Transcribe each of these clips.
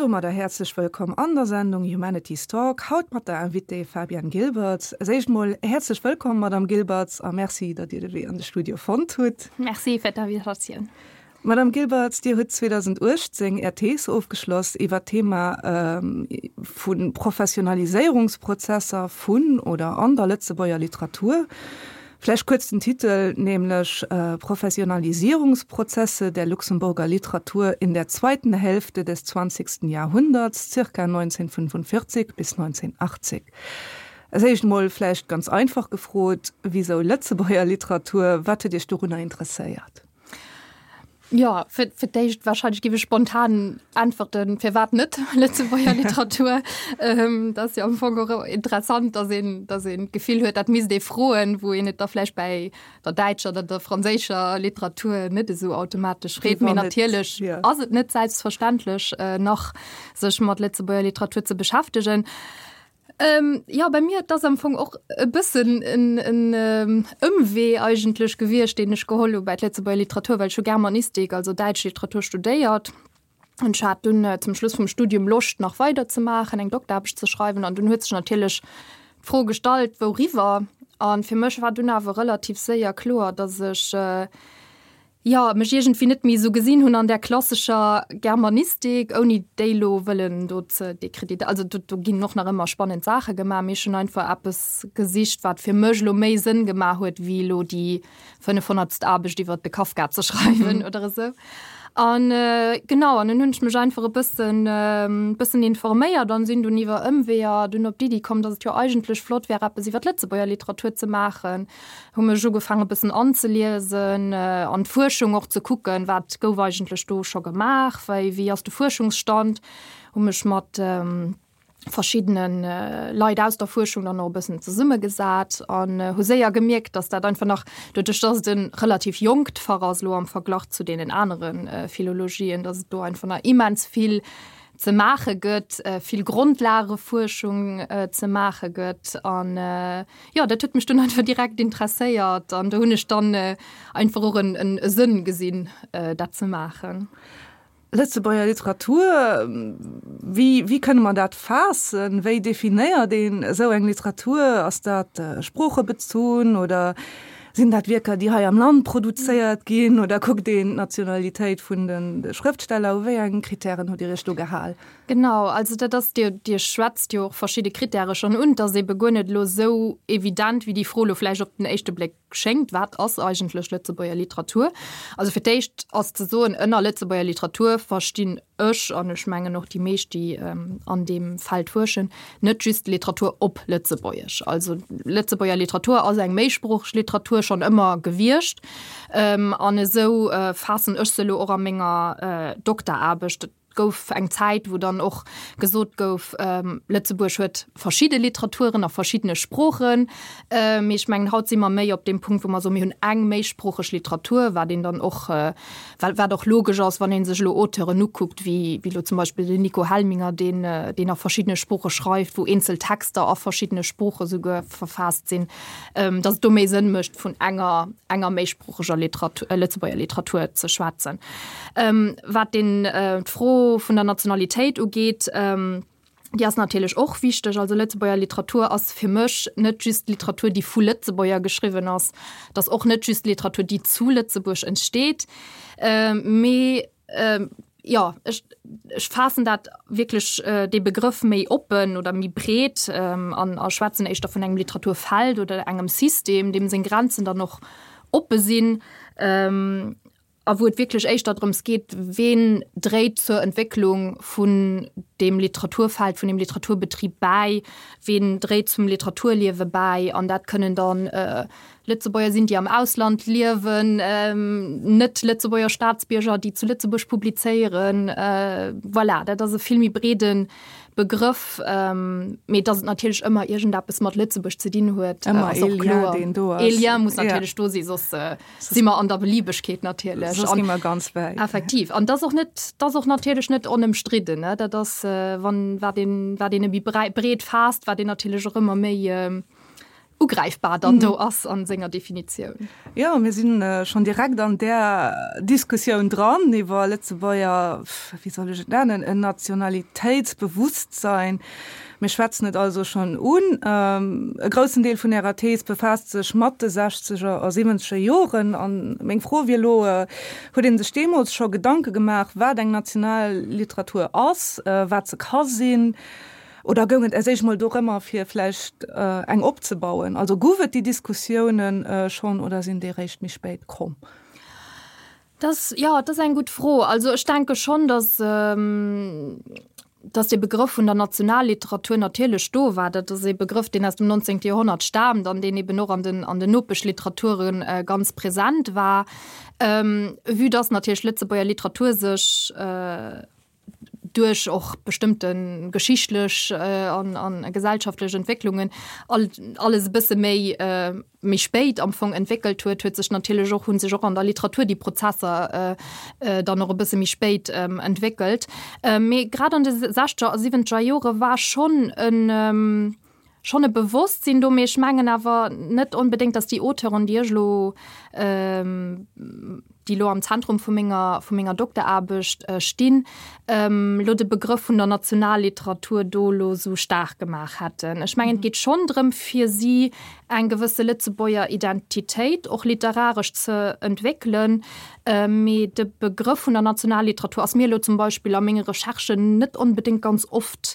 domadder häerzlech wëllkomm an der Sendung Humanities Talk, haut mat der Invitée Fabienne Gilbertz. Als éischt mol häerzlech wëllkomm, Madame Gilbertz, a Merci, datt Dir de Wee an de Studio fonnt hutt. Merci fir d'Invitatioun. Madame Gilbertz, Dir hutt 2018 Är Thees ofgeschloss iwwer d'Thema vu Professionaliséierungsprozesser vun oder an der Lëtzebuerger Literatur. Vläicht kuerz den Titel, nämlech Professionalisierungsprozesse der Luxemburger Literatur in der zweiten Hälfte des zwanzigsten Jahrhunderts, zirka 1945 bis 1980. Als éischt emol vläicht ganz einfach gefrot, Wisou Lëtzebuerger Literatur? Wat huet Iech dorunner interesséiert? Jo, fir, fir d'éischt wahrscheinlech géif ech spontan äntwerten, firwat net Lëtzebuerger Literatur? Ähm, dat ass jo am Fong och interessant, dass een, dass een d'Gefill huet, dat misst ee froen, wou een et da vläicht bäi der däitscher oder der franséischer Literatur net esou automatesch freet. Mee natierlech ass et net selbstverständlech nach, sech mat Lëtzebuerger Literatur ze beschäftegen. Ähm, jo, bei mir, et ass am Fong och e bëssen en, en Ëmwee eigentlech gewiescht, deen ech geholl hu bei d'Lëtzebuerger Literatur, well ech hu Germanistik, also däitsch Literatur studéiert. An ech hat dunn zum Schluss vum Studium Loscht nach weider ze maachen, eng Dokteraarbecht ze schreiwen. An dunn huet sech natierlech d'Fro gestallt, wouriwwer? An fir mech war dunn awer relativ séier kloer, datt ech, jo, mech iergendwéi net méi esou gesinn hunn an där klassescher Germanistik, ouni déi elo wëllen do ze décréditer-, also do, do ginn och nach ëmmer spannend Saache gemaach, mee ech hunn einfach eppes gesicht, wat fir mech elo méi Sënn gemaach huet, wéi elo déi fënnefhonnertst Aarbecht iwwert de Kafka ze schreiwen oder esou. An genau, an dunn hunn ech mech einfach e bëssen, bëssen informéiert an sinn dunn iwwer Ëmweeër dunn op d'Iddi komm, datt et jo eigentlech flott wär, eppes iwwer d'Lëtzebuerger Literatur ze maachen. Hu mech ugefaangen e bëssen anzeliesen, an d'Fuerschung och ze kucken, wat gouf eigentlech do scho gemaach, wéi wéi ass de Fuerschungsstand, hu mech mat verschiddene Leit aus der Fuerschung dann och e bëssen zesummegesat an hu séier gemierkt, datt dat einfach nach, doduerch datt et e relativ jonkt Fach ass elo am Verglach zu deenen anere Philologien, datt et do einfach nach immens vill ze maache gëtt, vill Grondlagefuerschung ze maache gëtt an jo, dat huet mech dunn einfach direkt interesséiert an do hunn ech dann einfach och en en Sënn gesinn, dat ze maachen. Lëtzebuerger Literatur, wéi wéi kënne mer dat faassen? Wéi definéiert een esou eng Literatur? Ass dat sproochebezunn oder sinn dat Wierker, déi hei am Land produzéiert ginn oder kuckt een d'Nationalitéit vun de Schrëftsteller? U wéi eng Kritären hutt Dir Iech do gehal? Genau, also dat ass, Dir, Dir schwätzt jo och verschidde Kritäre schonn un. Et ass ebe guer net elo esou evident, wéi déi Fro elo vläicht op den éischte Bléck schéngt, Wat ass eigentlech Lëtzebuerger Literatur? Also fir d'éischt ass ze soen, ënner Lëtzebuerger Literatur verstinn ech, an ech mengen och déi meescht, déi an deem Feld fuerschen, net just Literatur op Lëtzebuergesch. Also Lëtzebuerger Literatur ass eng méisproocheg Literatur schonn ëmmer gewiescht. An esou faassen ech se elo och a menger Dokteraarbecht. Et gouf eng Zäit, wou dann och gesot gouf, Lëtzebuerg huet verschidde Literaturen a verschiddene Sproochen. Mee ech mengen, haut si mer méi op deem Punkt, wou mer soen, mir hunn eng méisproocheg Literatur, wat een dann och, wat och logesch ass, wann ee sech elo Auteuren ukuckt, wéi elo zum Beispill den Nico Helminger, deen, deen a verschiddene Sprooche schreift, wou eenzel Texter a verschiddene Sprooche souguer verfaasst sinn, datt et do méi Sënn mécht, vun enger, enger méisproocheger Literatur, Lëtzebuerger Literatur ze schwätzen. Wat den, d'Fro vun der Nationalitéit ugeet, déi ass natierlech och wichteg. Also Lëtzebuerger Literatur ass fir mech net just Literatur, déi vu Lëtzebuerger geschriwwen ass, et ass och net just Literatur, déi zu Lëtzebuerg entsteet, mee jo, ech, ech faassen dat wierklech, dee Begrëff méi oppen oder méi breet an a schwätzen éischter vun engem Literaturfeld oder engem System, deem seng Grenzen dann och oppe sinn. A wou et wierklech éischter drëms geet, ween dréit zur Entwécklung vun deem Literaturfeld, vun deem Literaturbetrib bäi, ween dréit zum Literaturliewe bäi. An dat kënnen dann Lëtzebuerger sinn, déi am Ausland liewen, net-Lëtzebuerger Staatsbierger, déi zu Lëtzebuerg publizéieren. Voilà, dat ass e vill méi breede Begrëff. Mee datt et natierlech ëmmer iergendeppes mat Lëtzebuerg ze dinn huet, ass och kloer. E Lien muss natierlech do sinn, soss si mer an der Beliebegkeet natierlech. Soss gi mer ganz wäit. Effektiv. An dat ass och net, dat ass och natierlech net onëmstridden, ne. Dat ass, wann, wat een, wat een e méi breet faasst, wat een natierlech och ëmmer méi. Ugräifbar dann do ass a senger Definitioun. Jo, mir si schonn direkt an där Diskussioun dran iwwer Lëtzebuerger, wéi soll ech et nennen, en Nationalitéitsbewusstsein. Mir schwätzen et also schonn un. E groussen Deel vun Ärer Thees befaasst sech mat de sechzeger a siwwenzeger Joren. A meng Fro wier elo, Huet ee sech deemools scho Gedanke gemaach, wat eng national Literatur ass, wat se ka sinn? Oder goung et als éischt mol dorëmmer, fir vläicht eng opzebauen? Also gouf et déi Diskussiounen schonn oder sinn déi réischt méi spéit komm? Dat ass, jo, dat ass eng gutt Fro. Also ech denke schonn, datt, datt dee Begrëff vun der Nationalliteratur natierlech do war. Dat ass ee Begrëff, deen aus dem 19. Joerhonnert staamt an deen eben och an den, an den Nopeschliterature ganz present war. Vue datt natierlech d'Lëtzebuerger Literatur sech, duerch och bestëmmte geschichtlech an gesellschaftlech Entwécklungen alles e bësse méi méi spéit am Fong entwéckelt huet, huet sech natierlech och, hu sech och an der Literatur déi Prozesser dann och e bësse méi spéit entwéckelt. Mee grad an de sechzeger a siwwenzeger Jore war schonn en schonn e Bewosstsinn do, mee ech mengen awer net onbedéngt, datt déi Auteuren, déi ech elo, déi elo am Zentrum vu menger, vu menger Dokteraarbecht stinn, elo de Begrëff vun der Nationalliteratur do elo esou staark gemaach hätten. Ech mengen, et geet schonn drëm, fir si eng gewësse Lëtzebuerger Identitéit och literaresch ze entwéckelen, mee de Begrëff vun der Nationalliteratur ass mir elo zum Beispill a menge Recherchen net onbedéngt ganz oft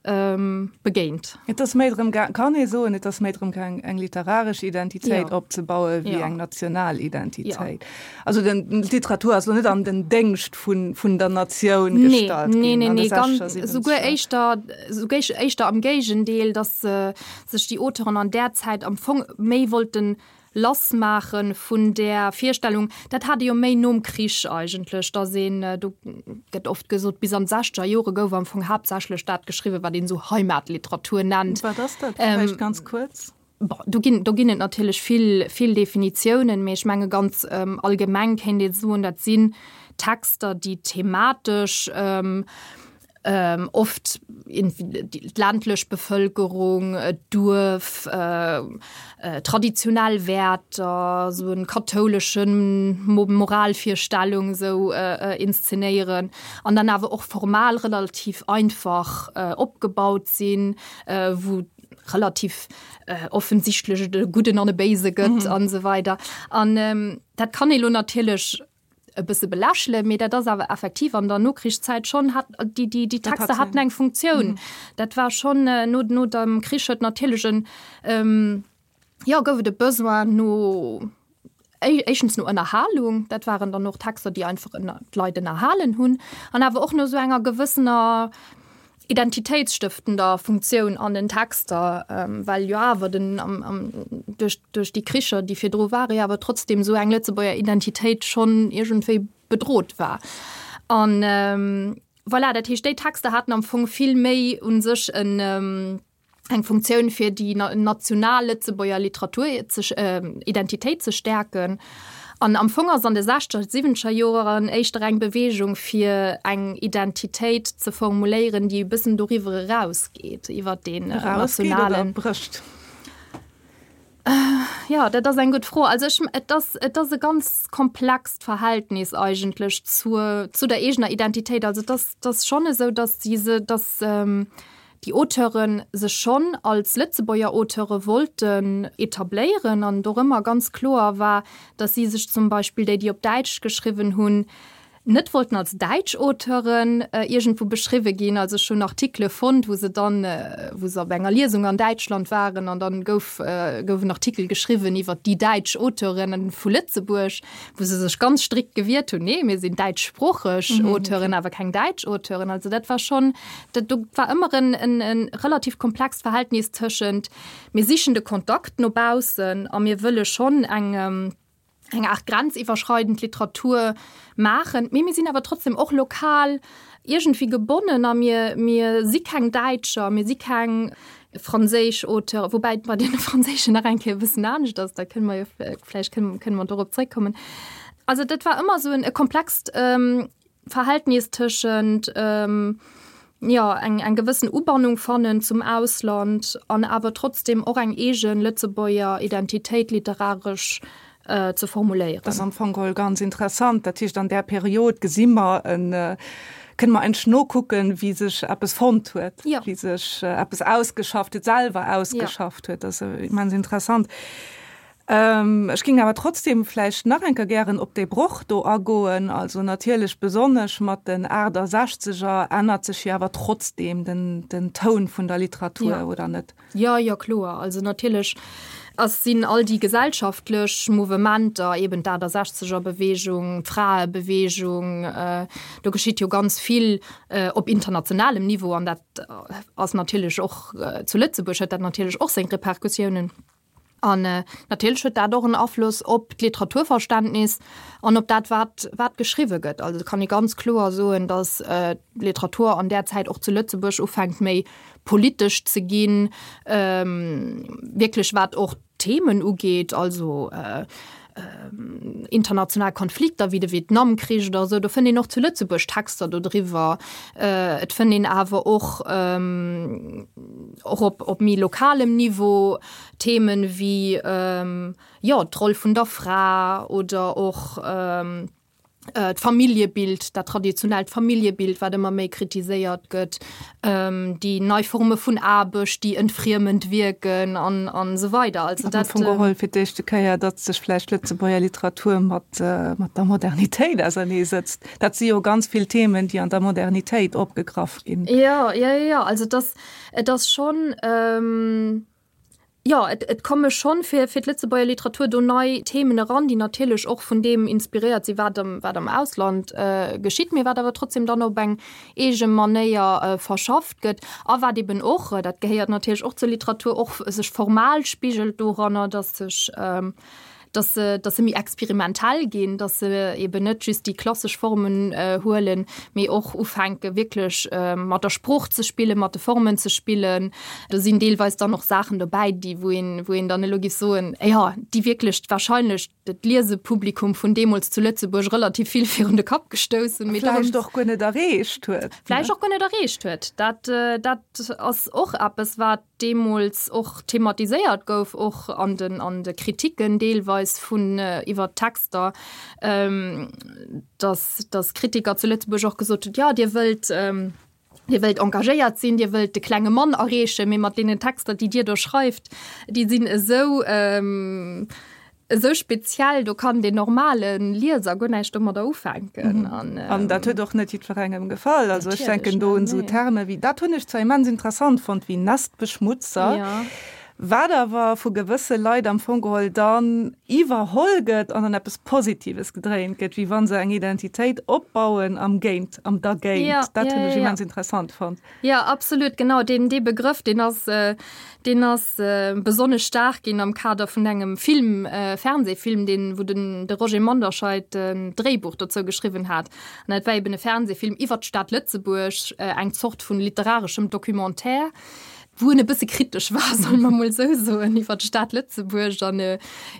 begéint. Et ass méi drëm gaang, kann ee soen, et ass méi drëm gaang, eng literaresch Identitéit opzebaue wéi eng national Identitéit. Also den, d'Literatur ass lo net an den Déngscht vun, vun der Natioun gestallt ginn. Nee, nee, nee, ganz, souguer éischter, souguer éischter am Géigendeel, datt sech déi Auteuren an där Zäit am Fong méi wollten Lassmaache vun där Virstellung, dat hat ee jo méi nom Krich eigentlech, datt een, do gëtt oft gesot, bis an d'sechzeger Jore gouf am Fong haaptsächlech dat geschriwwen, wat een esou Heimatliteratur nennt. Wat ass dat vläicht ganz kuerz? Bon, do ginn, do ginn et natierlech vill, vill Definitiounen, mee ech menge ganz allgemeng kéint ee soen, dat sinn Texter, déi thematesch, Oft d'ländlech Bevëlkerung, d'Duerf, traditionell Wäerter, esou en kathouleschen Moralvirstellung esou inszenéieren an dann awer och formal relativ einfach opgebaut sinn, wou relativ offensichtlech et e Gudden an e Béise gëtt an esou weider. An dat kann ee lo natierlech e bësse belächelen, mee dat ass awer effektiv an der Nokrichszäit schonn hat déi déi déi Texter haten eng Funktioun. Dat war schonn no no dem Krich huet natierlech en jo gouf et e Besoin no éischtens no Ënnerhalung, dat waren dann och Texter, déi einfach ënner d'Leit ënnerhalen hunn an awer och no esou enger gewëssener identitéitsstëftender Funktioun an den Texter, well jo awer den am am duerch duerch déi Kricher, déi virdru ware, jo awer trotzdem esou eng Lëtzebuerger Identitéit schonn iergendwéi bedrot war. An voilà, dat heescht, déi Texter haten am Fong vill méi u sech en eng Funktioun fir déi national Lëtzebuerger Literatur ze Identitéit ze stäerken. An am Fong ass an de sechzeger, siwwenzeger Joeren éischter eng Beweegung fir eng Identitéit ze formuléieren, déi e bëssen doriwwer erausgeet, iwwer deen nationalen. Brécht. Jo, dat ass eng gutt Fro. Also ech, et ass, et ass e ganz komplext Verhältnis eigentlech zur, zu der eegener Identitéit. Also et ass, et ass schonn esou, datt si se, datt déi Auteure sech schonn als Lëtzebuerger Auteure wollten etabléieren an dorëmmer ganz kloer war, datt si sech zum Beispill, déi déi op Däitsch geschriwwen hunn, net wollten als däitsch Auteuren iergendwou beschriwwe ginn. Also ech hunn Artikele fonnt, wou se dann, wou se op enger Liesung an Däitschland waren an dann gouf gouf en Artikel geschriwwen iwwer déi däitsch Auteuren vu Lëtzebuerg, wou se sech ganz strikt gewiert hunn, nee, mir sinn däitschsproocheg Auteuren, awer keng däitsch Auteuren. Also dat war schonn, dat do war ëmmer en en en relativ komplext Verhältnis tëschent mir sichen de Kontakt no baussen a mir wëlle schonn eng eng Aart grenziwwerschreidend Literatur maachen, mee mir sinn awer trotzdem och lokal iergendwéi gebonnen a mir, mir si keng Däitscher, mir si keng franséisch Auteuren, woubäi et bei deene franséischen nach eng Kéier e bëssen anescht ass, da kënne mer jo vläicht kënne, kënne mer dorop zréckkommen. Also dat war ëmmer esou en e komplext Verhältnis tëschent. Jo, eng eng gewëssen Ubannung fannen zum Ausland an awer trotzdem och eng eegen Lëtzebuerger Identitéit literaresch ze formuléieren. Dat ass am Fong geholl ganz interessant. Dat heescht, an där Period gesi mer en, kënne mer eigentlech nokucken, wéi sech eppes fonnt huet, wéi sech eppes ausgeschafft huet, selwer ausgeschafft huet. Dat ass immens interessant. Ech géing awer trotzdem vläicht nach eng Kéier gären op dee Broch do agoen. Also natierlech besonnesch mat den Achtesechzeger ännert sech jo awer trotzdem den, den Toun vun der Literatur, oder net? Jo, jo, kloer. Also natierlech ass, sinn all déi gesellschaftlech Mouvementer, eben d'Achtesechzeger-Beweegung, d'Fraebeweegung, do geschitt jo ganz vill op internationalem Niveau an dat ass natierlech och zu Lëtzebuerg huet dat natierlech och seng Repercussiounen. An natierlech huet dat och en Afloss op d'Literaturverständnis an op dat, wat, wat geschriwwe gëtt. Also et kann ee ganz kloer soen, datt d'Literatur an där Zäit och zu Lëtzebuerg ufänkt méi politesch ze ginn, wierklech wat och d'Themen ugeet, also international Konflikter wéi de Vietnamkrich oder esou, do fënnt een och zu Lëtzebuerg Texter dodriwwer. Et fënnt een awer och och op op méi lokalem Niveau Themen wéi jo d'Roll vun der Fra oder och d'Familljebild, dat traditionellt Familljebild, wat ëmmer méi kritiséiert gëtt, déi nei Forme vun Aarbecht, déi entfriemend wierken an an esou weider. Also dat. Am Fong geholl fir d'éischte Kéier, datt sech vläicht d'Lëtzebuerger Literatur mat mat der Modernitéit auserneesetzt. Dat si jo ganz vill Themen, déi an der Modernitéit opgegraff ginn. Jo, jo, jo, also et ass, et ass schonn. Jo, et, et komme schonn fir, fir d'Lëtzebuerger Literatur do nei Themen eran, déi natierlech och vun deem inspiréiert sinn, wat am, wat am Ausland geschitt, mee wat awer trotzdem dann op eng eege Manéier verschafft gëtt a wat eben och, dat gehéiert natierlech och zur Literatur, och sech formal spigelt doranner, dass sech, dass se, dass se méi experimentell ginn, dass se eben net just déi klassesch Formen huelen, mee och ufänke wierklech mat der Sprooch ze spillen, mat de Formen ze spillen. Do sinn deelweis dann och Saachen dobäi, déi wou een, wou een dann elo géif soen, jo, déi wierklech wahrscheinlech d'Liesepublikum vun deemools zu Lëtzebuerg relativ vill virun de Kapp gestouss hunn. Mee vläicht och guer net erreecht huet. Vläicht och guer net erreecht huet. Dat, dat ass och eppes, wat deemools och thematiséiert gouf, och an den, an de Kritiken deelweis vun iwwer d'Texter, dass, dass Kritiker zu Lëtzebuerg och gesot hunn, jo, Dir wëllt, Dir wëllt engagéiert sinn, Dir wëllt de klenge Mann erreechen, mee mat deenen Texter, déi Dir do schreift, déi sinn esou, esou speziell, do kann den normale Lieser guer näischt domadder ufänken. An, An dat huet och net jiddwerengem gefall. Also ech denken do un esou Terme wéi, dat hunn ech zwar immens interessant fonnt, wéi Nestbeschmutzer, ja. wat awer vu gewësse Leit am Fong geholl dann iwwerholl gëtt an an eppes Positives gedréint gëtt, wéi wa se eng Identitéit opbauen am Géint, am Dergéint. Ja, dat hunn ech immens interessant fonnt. Jo, absolut, genau. Deen, dee Begrëff, deen ass, deen ass besonnesch staark ginn am Kader vun engem Film, Fernsehfilm, deen, wou den, de Roger Manderscheid en Dréibuch dozou geschriwwen hat. An dat war eben e Fernsehfilm iwwer d'Stad Lëtzebuerg, eng Zort vun literareschem Documentaire, wou en e bësse kritesch war, solle mer mol esou soen, iwwer d'Stad Lëtzebuerg an,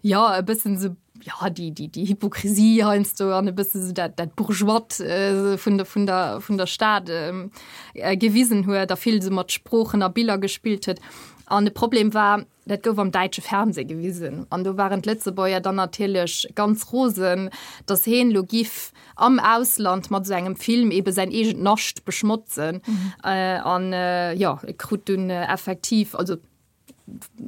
jo, e bëssen esou, ja, déi, déi, déi Hypokrisie heiansdo an e bësse sou dat, dat Bourgeoist äh, vun der, vun der, vun der Stad ähm, äh, gewisen huet a vill sou mat Sproochen a Biller gespillt huet. An de Problem war, dat gouf am däitsche Fernseh gewisen. An do waren d'Lëtzebuerger dann natierlech ganz rosen, datt heen lo giff am Ausland mat sou engem Film ebe säin eegent Nascht beschmotzen. Mhm. Äh, an äh, ja, e krut dunn äh, effektiv, also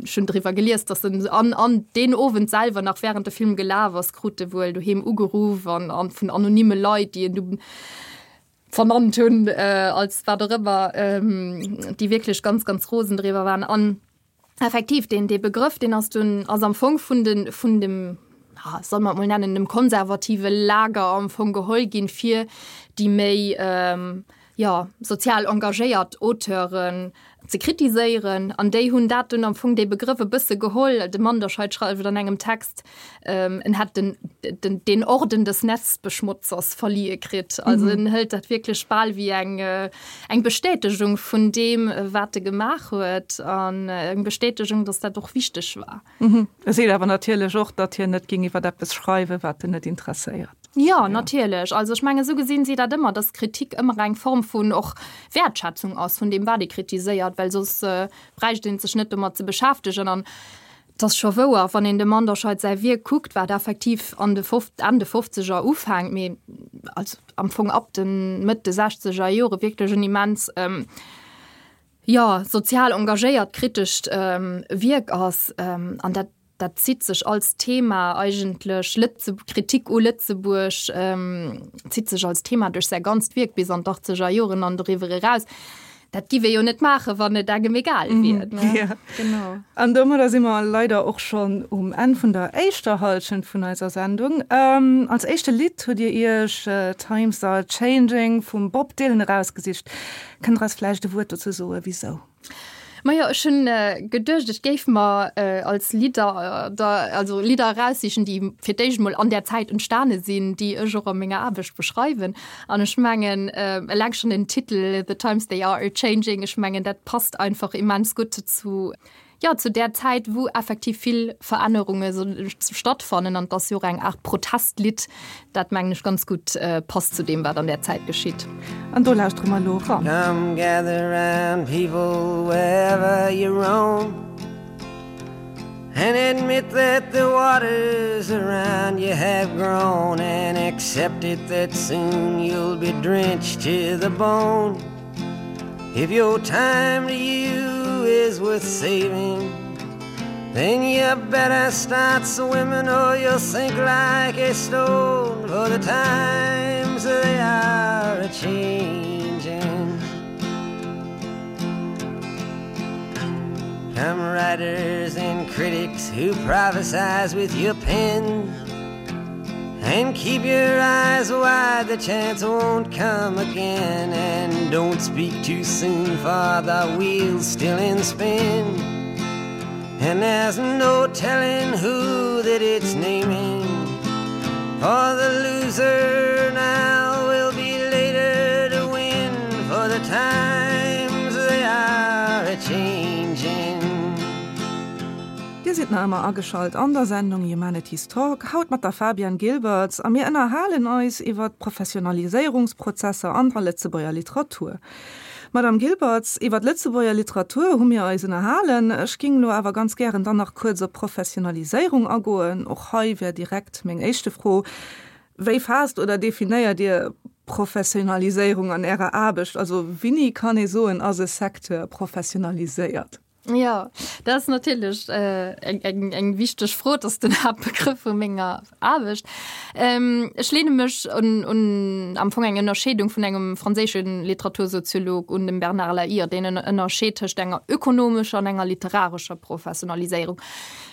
Ech hunn driwwer gelies, dass en an, an deen Owend selwer, nach während de Film gelaf ass, krut e wuel doheem ugeruff an, an vun anonyme Leit, déi en du vernannt hunn äh, als wat och ëmmer, ähm, déi wierklech ganz, ganz rosen driwwer waren. An effektiv, deen, dee Begrëff, deen ass dunn, ass am Fong vun den, vun dem, ja, soll mer et mol nennen, dem konservative Lager am Fong geholl ginn, fir déi méi, ähm, jo, sozial engagéiert Auteuren ze kritiséieren. An déi hunn dat dunn am Fong, dee Begrëff e bësse geholl. De Manderscheid schreift an engem Text, en hätt den, den, den Orden des Nestbeschmutzers verlieh kritt. Also en hëlt dat wierklech bal wéi eng, eng Bestätegung vun deem, wat e gemaach huet an eng Bestätegung, datt dat och wichteg war. E seet awer natierlech och, datt hien net géing iwwer eppes schreiwen, wat en net interesséiert. Jo, natierlech. Also ech mengen, esou gesinn si dat ëmmer, dass Kritik ëmmer eng Form vun och Wäertschätzung ass vun deem, wat ee kritiséiert, well soss bräicht ee sech net domat ze beschäftegen. An et ass scho wouer, wann een dem Manderscheid säi Wierk kuckt, wat effektiv an de Enn de Fofzeger ufänkt, mee also am Fong ab de Mëtt de Sechzeger Jore wierklech en immens, jo, sozial engagéiert kritescht Wierk ass. An dat Dat zitt sech als Thema eigentlech, Lëtze Kritik u Lëtzebuerg zitt sech als Thema duerch säi ganzt Wierk bis an d'Achtzeger Joren an doriwwer eraus. Dat giff ee jo net maachen, wann et engem egal wier, ne? Ja. Genau. An domadder si mer leider och schonn um Enn vun der éischter Hallschent vun eiser Sendung. Als éischte Lidd hutt Dir Iech Times Are Changing vum Bob Dylan erausgesicht. Kënnt Der eis vläicht e Wuert dozou soen, wisou? Majo, ech hunn geduecht, ech géif mer als Lidder, also Lidder eraussichen, déi fir d'éischt emol an där Zäit entstane sinn, déi ech och a menger Aarbecht beschreiwen. An ech mengen, eleng schonn den Titel The Times They Are A-Changing, ech mengen, dat passt einfach immens gutt zu, jo, zu där Zäit, wou effektiv vill Verännerunge stattfannen. An et ass jo och eng Aart Protestlidd, dat, mengen ech, ganz gutt passt zu deem, wat an där Zäit geschitt. An do lauschtere mer elo eran. Come gather round people wherever you roam And admit that the waters around you have grown And accept it that soon you'll be drenched to the bone If your time to you is worth saving Then you better start swimming or you'll sink like a stone For the times they are a-changing Come writers and critics who prophesize with your pen And keep your eyes wide, the chance won't come again And don't speak too soon for the wheel's still in spin And there's no telling who that it's naming For the loser now will be later to win For the times they are a-changing Dir sidd nach ëmmer ageschalt an der Sendung Humanities Talk, haut mat der Fabienne Gilbertz a mir ënnerhalen eis iwwer d'Professionaliséierungsprozesser an der Lëtzebuerger Literatur. Madame Gilbertz, iwwer d'Lëtzebuerger Literatur hu mir eis ënnerhalen. Ech ging elo awer ganz gären dann nach kuerz op d'Professionaliséierung agoen. Och hei wär direkt meng éischte Fro, Wéi faasst oder definéiert Dir Professionaliséierung an Ärer Aarbecht? Also wéini kann ee soen, ass e Secteur professionaliséiert? Jo, dat ass natierlech eng, eng wichteg Fro. Dat ass den Haaptbegrëff vu menger Aarbecht. Ech leene mech un, un am Fong eng Ënnerscheedung vun engem franséische Literatursoziolog un, dem Bernard Lahire, deen en ënnerscheet tëscht enger ökonomescher an enger literarescher Professionaliséierung.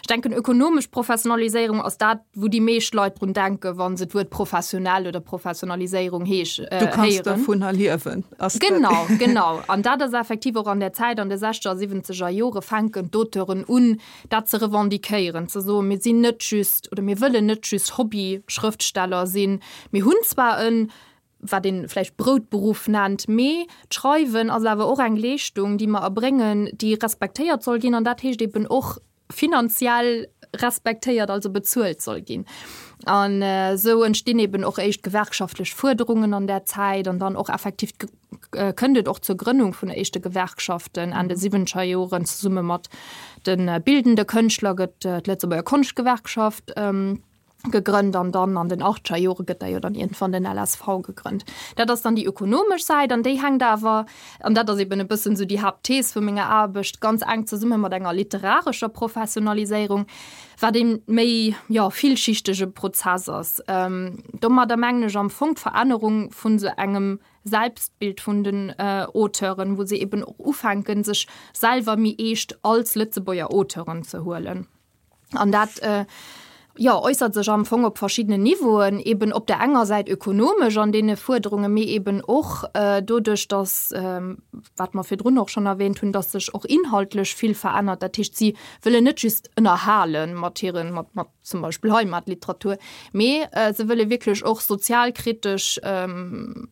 Ech denken, ökonomesch Professionaliséierung ass dat, wou déi meescht Leit drun denken, wa se d'Wuert professionell oder Professionaliséierung heesch, héieren. Du kanns dovunner liewen. Ass genau, genau. An dat ass effektiv och an der Zäit, an de sechzeger a siwwenzeger Jore fänken d'Auteuren un, dat ze revendiquéieren, ze soen, mir sinn net just oder mir wëllen net just Hobby-Schrëftsteller sinn. Mir hunn zwar en, wat ee vläicht Broutberuff nennt, mee d'Schreiwen ass awer och eng Leeschtung, déi mer erbréngen, déi respektéiert soll ginn. An dat heescht eben och, finanziell respektéiert, also bezuelt soll ginn. An esou entstinn eben och éischt gewerkschaftlech Fuerderungen an där Zäit an dann och effektiv kënnt et och zur Grënnung vun éischte Gewerkschaften Enn de siwwenzeger Joren. Zesumme mat de bildende Kënschtler gëtt d'Lëtzebuerger Konschtgewerkschaft gegrënnt an dann an den achtzeger Jore gëtt da jo dann iergendwann den LSV gegrënnt. Dat ass dann déi ökonomesch Säit an déi hänkt awer, an dat ass eben e bëssen esou déi Haaptthees vu menger Aarbecht, ganz enk zesumme mat enger literarescher Professionaliséierung, wat ee méi, jo, villschichtege Prozess ass. Domadder mengen ech am Fong d'Verännerung vun esou engem Selbstbild vun den Auteuren, wou se eben och ufänken, sech selwer méi eescht als Lëtzebuerger Auteuren ze huelen. An dat jo, äussert sech am Fong op verschiddenen Niveauen, eben op der enger Säit ökonomesch an deene Fuerderungen, mee eben och doduerch, dass, wat mer virdrun och schonn erwähnt hunn, dass sech och inhaltlech vill verännert. Dat heescht, si wëllen net just ënnerhale mat hiren, mat, mat. zum Beispill Heimatliteratur, mee se wëlle wierklech och sozialkritesch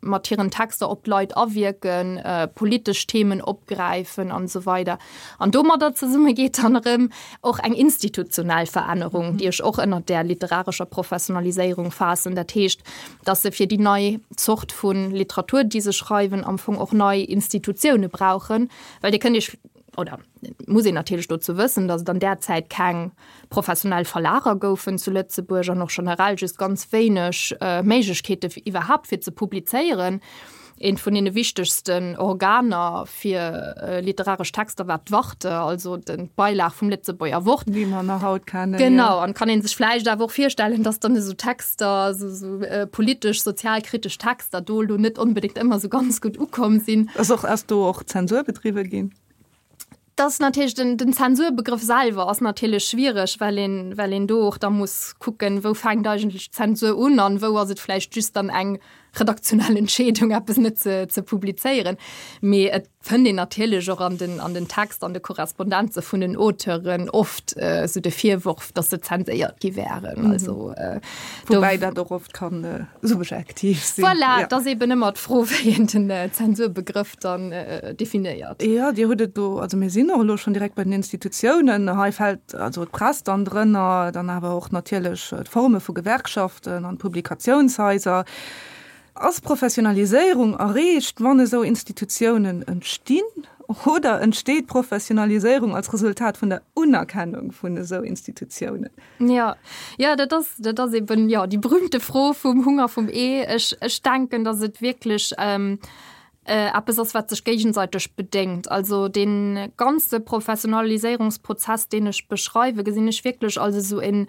mat hiren Texter op d'Leit awierken, politesch Themen opgräifen an esou weider. An domadder zesumme geet dann erëm och eng institutionell Verännerung, déi ech och ënnert där literarescher Professionaliséierung faassen. Dat heescht, datt se fir déi nei Zort vu Literatur, déi se schreiwen, am Fong och nei Institutioune brauchen, well Dir kënnt Iech, oder et muss een natierlech dozou wëssen, datt et an där Zäit keng professionell Verlager goufen zu Lëtzebuerg an och generell just ganz wéineg Méiglechkeete iwwerhaapt fir ze publizéieren. Eent vun deene wichtegsten Organer fir literaresch Texter war d'Warte, also d'Beilag vum Lëtzebuerger Wort. Wéi mer nach haut kennen. Genau, an kann ee sech vläicht awer och virstellen, datt dann esou Texter, esou politesch, sozialkritesch Texter do elo net onbedéngt ëmmer esou ganz gutt ukomm sinn. Ass och, ass do och Zensur bedriwwe ginn? Das natierlech den, den Zensurbegrëff selwer ass natierlech schwiereg, well een, well een do och da muss kucken, wou fänkt eigentlech d'Zensur un an wou ass et vläicht just dann eng redaktionell Entscheedung, eppes net ze, ze publizéieren. Mee et fënnt een natierlech och an den, an den Text, an de Korrespondenze vun den Auteuren oft esou de Virworf, datt se zenséiert gi wären. Also do. Woubäi dat och oft kann subjektiv sinn. Voilà, et ass eben ëmmer d'Fro, wéi een den Zensurbegrëff dann definéiert. Jo, Dir hutt et do, also mir sinn och elo schonn direkt bei den Institutiounen. Hei fält also d'Press dann drënner, dann awer och natierlech d'Forme vu Gewerkschaften an d'Publikatiounshaiser. Ass Professionaliséierung erreecht, wann esou Institutiounen entstinn, oder entsteet Professionaliséierung als Resultat vun der Unerkennung vun esou Institutiounen? Jo, jo, dat ass, dat ass eben, jo, déi berühmte Fro vum Hunger vum Ee. Ech, ech denken, datt et wierklech eppes ass, wat sech géigesäiteg bedéngt. Also dee ganze Professionaliséierungsprozess, deen ech beschreiwen, gesinn ech wierklech als esou en,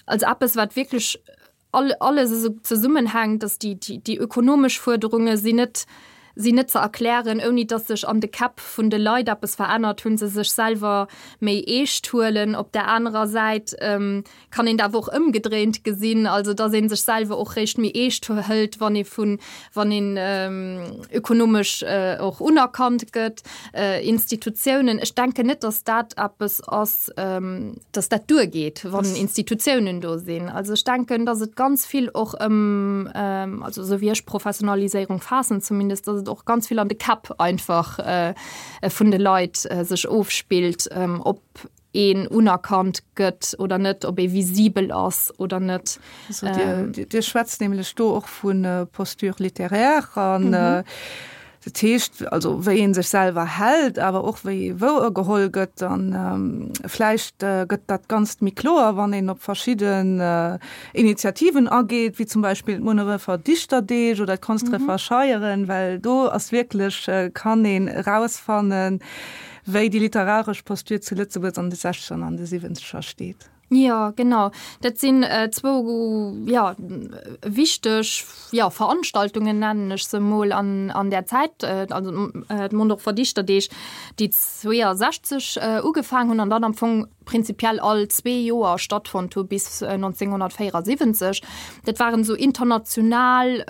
als eppes, wat wierklech all, alles esou zesummenhänkt, dass déi, déi, déi ökonomesch Fuerderunge sinn net, sinn net ze erklären, ouni dass sech an de Käpp vun de Leit eppes verännert hunn, se sech selwer méi eescht huelen. Op där anerer Säit kann een dat awer och ëmgedréint gesinn, also dass ee sech selwer och réischt méi eescht hëlt, wann ee vun, wann een ökonomesch och unerkannt gëtt. Institutiounen, ech denken net, dass dat eppes ass, dass dat duergeet, wann Institutiounen do sinn. Also ech denken, dass et ganz vill och ëm, also esou wéi ech Professionaliséierung faassen zumindest, dass et och ganz vill an de Käpp einfach vun de Leit sech ofspillt, ob een unerkannt gëtt oder net, ob ee visibel ass oder net. Also Dir, Dir schwätzt nämlech do och vu Posture littéraire an dat heescht also wéi ee sech selwer hält, awer och wéi ee wouergeholl gëtt. An vläicht gëtt dat Ganzt méi kloer, wann een op verschidden Initiativen ageet, wéi zum Beispill d'Munnerefer Dichterdeeg oder d'Konsdrefer Scheieren, well do ass wierklech, kann een erausfannen, wéi déi literaresch Posture zu Lëtzebuerg an de Sechzeger an de Siwwenzeger steet. Jo, genau. Dat sinn zwou, jo, wichteg, jo, Veranstaltungen, nennen ech se emol, an, an där Zäit, also d'Mondorfer Dichterdeeg, déi 62 ugefaangen hunn an dann am Fong prinzipiell all zwee Joer stattfonnt hu bis 1974. Dat waren esou international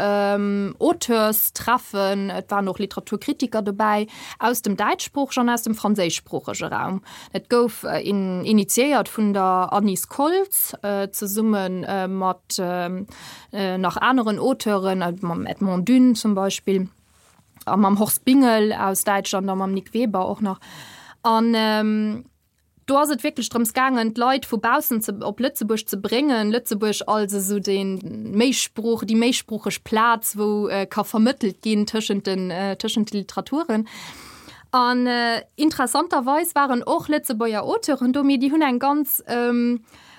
Auteurstreffen, et waren och Literaturkritiker dobäi aus dem däitschsproochegen an aus dem franséischsproochege Raum. Et gouf initiéiert vun der Anise Koltz zesumme mat nach aneren Auteuren, mam Edmond Dune zum Beispill a mam Horst Bingel aus Däitschland a mam Nick Weber och nach. An Do ass et wierklech drëms gaangen, d'Leit vu baussen ze, op Lëtzebuerg ze bréngen, Lëtzebuerg als esou dee Méisprooch, déi méisproocheg Plaz, wou ka vermëttelt ginn tëschent den, tëschent de Literaturen. An interessanterweis waren och Lëtzebuerger Auteuren do, mee déi hunn eng ganz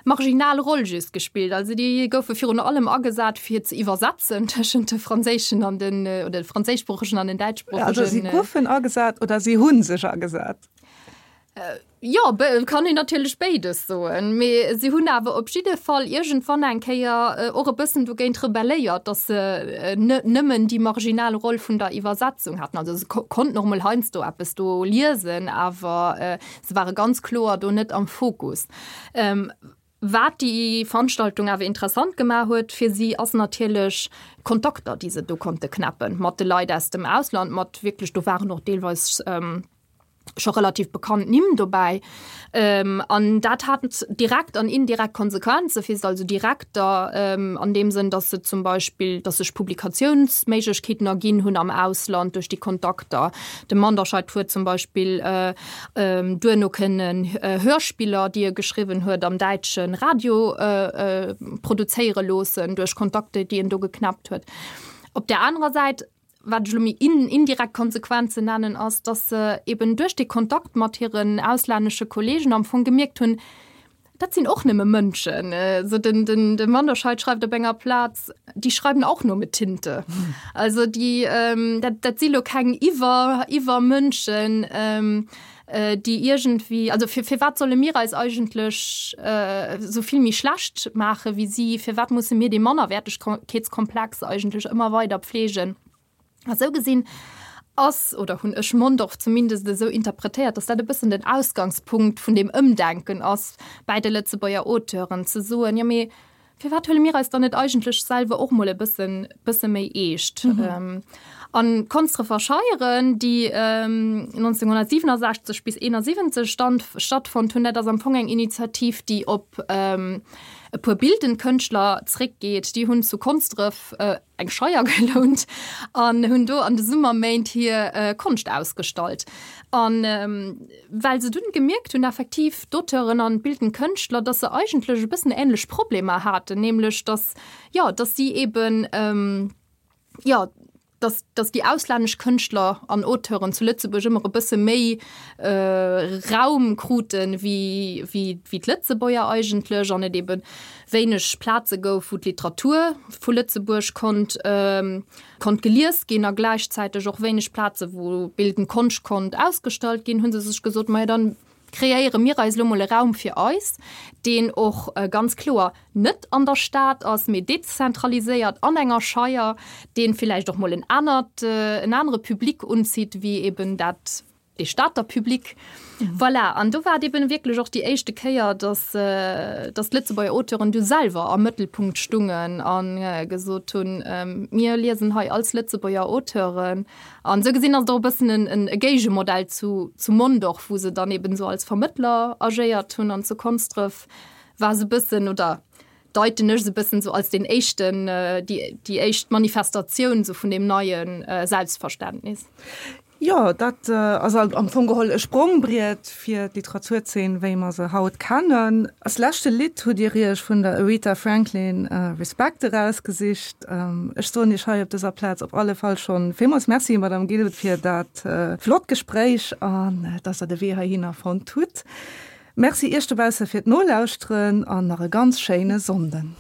marginal Roll just gespillt. Also déi goufe virun allem agesat, fir ze iwwersetzen tëschent de franséischen an den, oder de franséischsproochegen an den däitschsproochegen. Also si goufen agesat oder si hu sech agesat? Jo, kann een natierlech béides soen, mee si hunn awer op jidde Fall iergendwann eng Kéier och e bëssen dogéint rebelléiert, datt se net nëmmen déi marginal Roll vun der Iwwersetzung haten. Also se konnten och mol heiansdo eppes do liesen, awer se ware ganz kloer do net am Fokus. Wat déi Veranstaltung awer interessant gemaach huet fir si, ass natierlech d'Kontakter, déi se do konnte knäppen mat de Leit aus dem Ausland, mat wierklech, do waren och deelweis. Scho relativ bekannt Nimm dobäi. An dat hat direkt an indirekt Konsequenze fir se, also direkter an deem Sënn, datt se zum Beispill, datt sech Publikatiounsméiglechkeeten erginn hunn am Ausland duerch déi Kontakter. De Manderscheid huet zum Beispill duerno kënnen Hörspiller, déi e geschriwwen huet, am däitsche Radio produzéiere loossen duerch Kontakter, déi en do geknäppt huet. Op där anerer Säit wat ech elo méi indirekt Konsequenzen nennen, ass, dass se eben duerch dee Kontakt mat hiren auslännesche Kollegen am Fong gemierkt hunn, dat sinn och nëmme Mënschen. Esou den, den, de Manderscheid schreift op enger Plaz, Die schreiben auch nur mit Tinte. Also déi, dat, dat si lo keng Iwwer, Iwwermënschen, déi iergendwéi, also fir, firwat solle mir eis eigentlech esou vill méi schlecht maache wéi si? Firwat musse mir dee Mannerwäertegkeetskomplex eigentlech ëmmer weider pflegen? A sou gesinn ass, oder hunn ech Mondorf zumindest esou interpretéiert, datt dat e bëssen den Ausgangspunkt vun deem Ëmdenken ass bäi de Lëtzebuerger Auteuren, ze soen, jo mee Firwat huele mir eis dann net eigentlech selwer och mol e bëssen, bësse méi eescht? Mhm. An d'Konsdrefer Scheieren, déi 1967 bis 71 stand, stattfonnt hunn, dat ass am Fong eng Initiativ, déi op e puer bildend Kënschtler zréckgeet. Déi hunn zu Konsdref eng Scheier gelount an hunn do an de Summerméint hir Konscht ausgestallt. An well se dunn gemierkt hunn, effektiv d'Auteuren an d'bildend Kënschtler, dass se eigentlech e bëssen änlech Problemer haten, nämlech dass, jo, dass si eben, jo, dass, dass déi auslännesch Kënschtler an Auteuren zu Lëtzebuerg ëmmer e bësse méi Raum kruten, wéi, wéi, wéi d'Lëtzebuerger eigentlech an et eben wéineg Plaze gouf, wou d'Literatur vu Lëtzebuerg konnt konnt gelies ginn a gläichzäiteg och wéineg Plaze wou bildend Konscht konnt ausgestallt ginn, hu se sech gesot, majo dann kreéiere mir eis elo mol e Raum fir eis, deen och ganz kloer net an der Stad ass, mee dezentraliséiert an enger Scheier, dee villäicht och mol en anert, en anere Public unzitt wéi eben dat dee Stater Public. Voilà, an do war et eben wierklech och déi éischte Kéier, dass, dass d'Lëtzebuerger Auteuren du selwer am Mëttelpunkt stungen a gesot hunn, Mir liesen hei als Lëtzebuerger Auteuren. An esou gesinn ass et och e bëssen en, e Géigemodell zu, zu Mondorf, wou se dann eben esou als Vermëttler agéiert hunn. An zu Konsdref war se e bëssen, oder deiten ech se e bëssen esou als deen éischten, déi, déi éischt Manifestatioun esou vun deem neie Selbstverständnis. Jo, dat ass am Fong geholl e Sprongbriet fir d'Literaturzeen, wéi mer se haut kennen. Als leschte Lidd hutt Dir Iech vun der Aretha Franklin Respect erausgesicht. Ech soen Iech hei op dëser Plaz op alle Fall schonn villmools Merci, Madame Gilbert, fir dat flott Gespréich an dass Der de Wee heihinner fonnt hutt. Merci Iech dobausse fir d'Nolauschteren an nach e ganz schéine Sonnden.